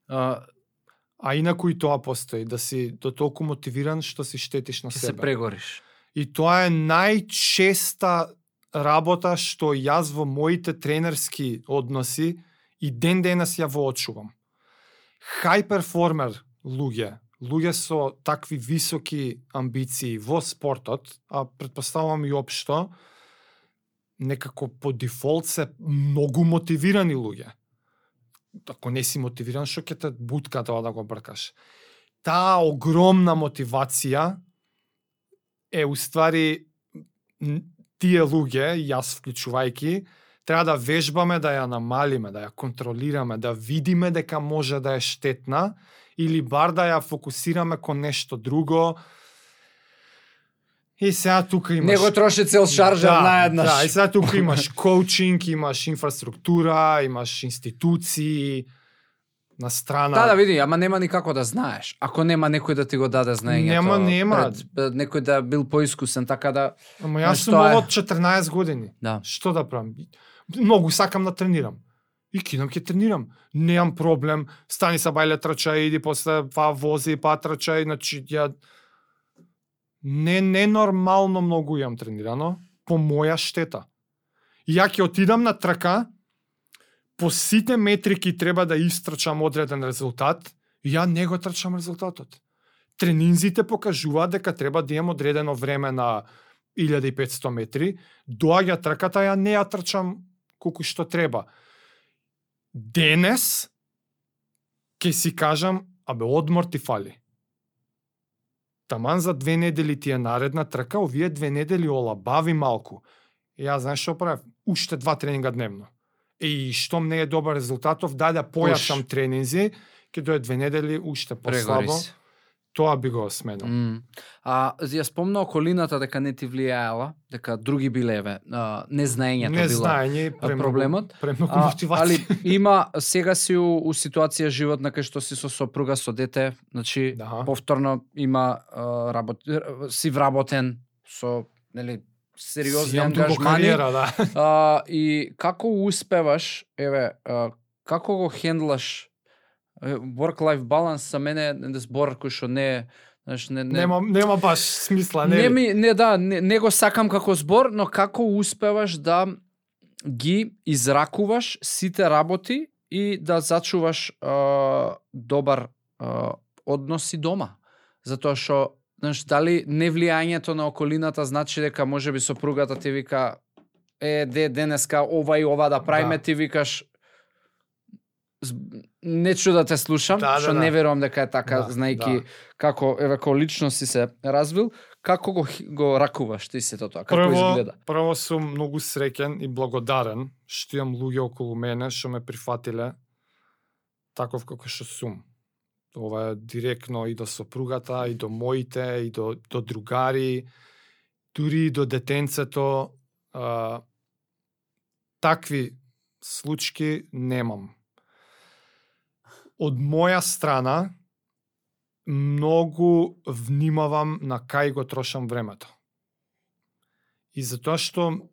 А инаку и тоа постои, да си до толку мотивиран што си штетиш на Ќе себе. се прегориш. И тоа е најчеста работа што јас во моите тренерски односи и ден денес ја воочувам. High performer луѓе со такви високи амбиции во спортот, а претпоставувам и општо, некако по дефолт се многу мотивирани луѓе. Ако не си мотивиран, што ќе те бутка тоа да го бркаш. Таа огромна мотивација е уствари тие луѓе, јас вклучувајки, треба да вежбаме, да ја намалиме, да ја контролираме, да видиме дека може да е штетна или бар да ја фокусираме кон нешто друго. И сега тука имаш... Него троши цел шаржер наеднаш. Да, и сега тука имаш коучинг, имаш инфраструктура, имаш институции на страна. Да, види, ама нема никако да знаеш. Ако нема некој да ти го даде знаењето. Нема. Некој да бил поискусен, така да... Ама јас сум од 14 години. Да. Што да правам? Многу сакам да тренирам. И кидам ќе тренирам. Немам проблем. Стани са бајле трчај, иди после па вози, па трчај, значи ја не нормално многу јам тренирано по моја штета. Ја ќе отидам на трка, по сите метрики треба да истрчам одреден резултат, и ја не го трчам резултатот. Тренинзите покажуваат дека треба да имам одредено време на 1500 метри, доаѓа трката, ја не ја трчам колку што треба. Денес ќе си кажам, одмор ти фали. Таман за 2 недели ти е наредна трка, овие 2 недели олабави малку. И ја знаеш што правев? Уште 2 тренинга дневно. И штом не е добар резултатов, да појачам тренинзи, ќе дое 2 недели уште послабо. Тоа би го сменил. Ја спомна околината дека не ти влијаела, дека други билеве, незнаењето било проблемот. Премногу мотивација. Али има, сега си у ситуација животна кај што си со сопруга, со дете, значи повторно има си вработен со, нели, сериозни ангажмани. И како успеваш, како го хендлаш work-life balance за мене е збор кој што не нема баш смисла, не го сакам како збор, но како успеваш да ги изракуваш сите работи и да зачуваш добар односи дома. Затоа што дали невлијањето на околината значи дека можеби сопругата ти вика денеска ова и ова да правиме, ти викаш не чу да те слушам, што не верувам дека е така, знајки како како личност си се развил, како го ракуваш ти сето тоа, како изгледа? Прво сум многу среќен и благодарен што имам луѓе околу мене што ме прифатиле таков како што сум. Ова е директно и до сопругата, и до моите, и до другари, дури и до детенцето. Такви случаи немам. Од моја страна, многу внимавам на кај го трошам времето. И затоа што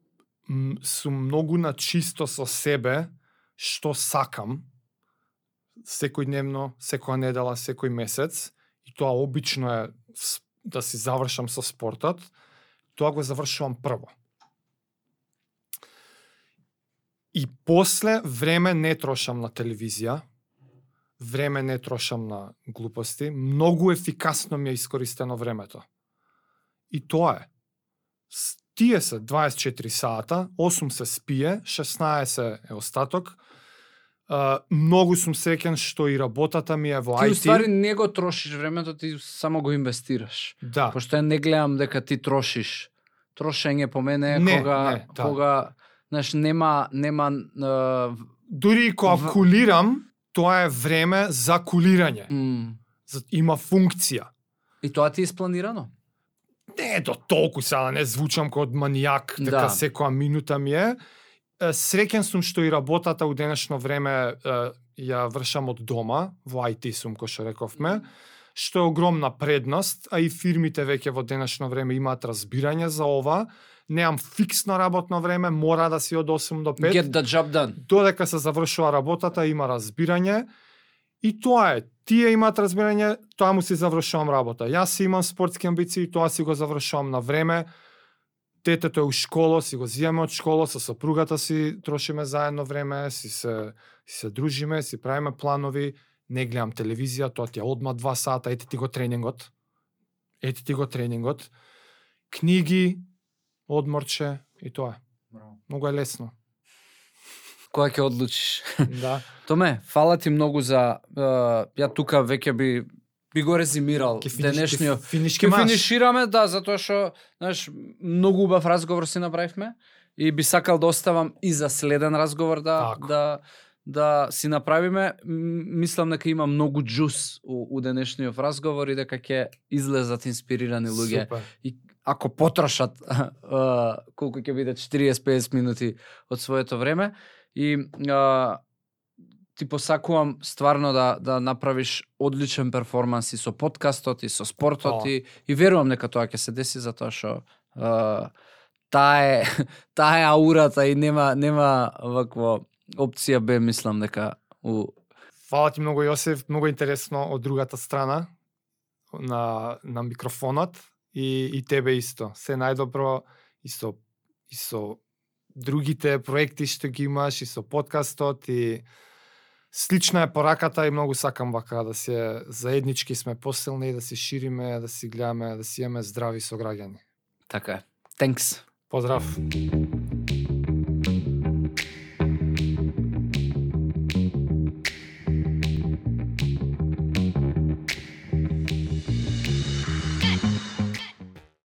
сум многу на чисто со себе, што сакам, секојдневно, секоја недела, секој месец, и тоа обично е да си завршам со спортот, тоа го завршувам прво. И после време не трошам на телевизија, време не трошам на глупости, многу ефикасно ми е искористено времето. И тоа е. Тие се 24 сата, 8 се спие, 16 е остаток. Многу сум среќен што и работата ми е во IT. Ти уствари не го трошиш времето, ти само го инвестираш. Да. Пошто не гледам дека ти трошиш. Трошење по мене кога знаеш нема дури кога кулирам, тоа е време за кулирање. Има функција. И тоа ти е испланирано? Не до толку сега, не звучам како манијак, дека секоја минута ми е. Среќен сум што и работата у денешно време ја вршам од дома, во IT сум, кој што рековме, што е огромна предност, а и фирмите веќе во денешно време имаат разбирање за ова. Неам фиксно работно време, мора да си од 8 до 5. Get the job done. Додека се завршува работата, има разбирање. И тоа е. Тие имаат разбирање, тоа му си завршувам работа. Јас имам спортски амбиции, тоа си го завршувам на време. Детето е у школа, си го зијаме од школа, со сопругата си трошиме заедно време, си се дружиме, си правиме планови, не гледам телевизија, тоа ти е одма 2 сата, ете ти го тренингот. Книги, одморче и тоа е. Многу е лесно. Кога ќе одлучиш? Да. Томе, фала ти многу за ја тука веќе би го резимирал денешниот. Ќе финишираме, да, затоа што, знаеш, многу убав разговор си направивме и би сакал да оставам и за следен разговор да си направиме. Мислам дека има многу џус у денешниот разговор и дека ќе излезат инспирирани луѓе. Супер. И ако потрошат колку ќе биде 40-50 минути од своето време и ти посакувам стварно да направиш одличен перформанс и со подкастот и со спортот и верувам дека тоа ќе се деси затоа што таа е аурата и нема вакво опција Б, мислам дека Фала ти многу, Јосиф, многу интересно од другата страна на микрофонот и тебе исто. Се најдобро и со другите проекти што ги имаш и со подкастот и слична е пораката и многу сакам вака да се заеднички сме посилни, да се шириме, да си гледаме, да си имаме здрави сограѓани. Така е. Thanks. Поздрав.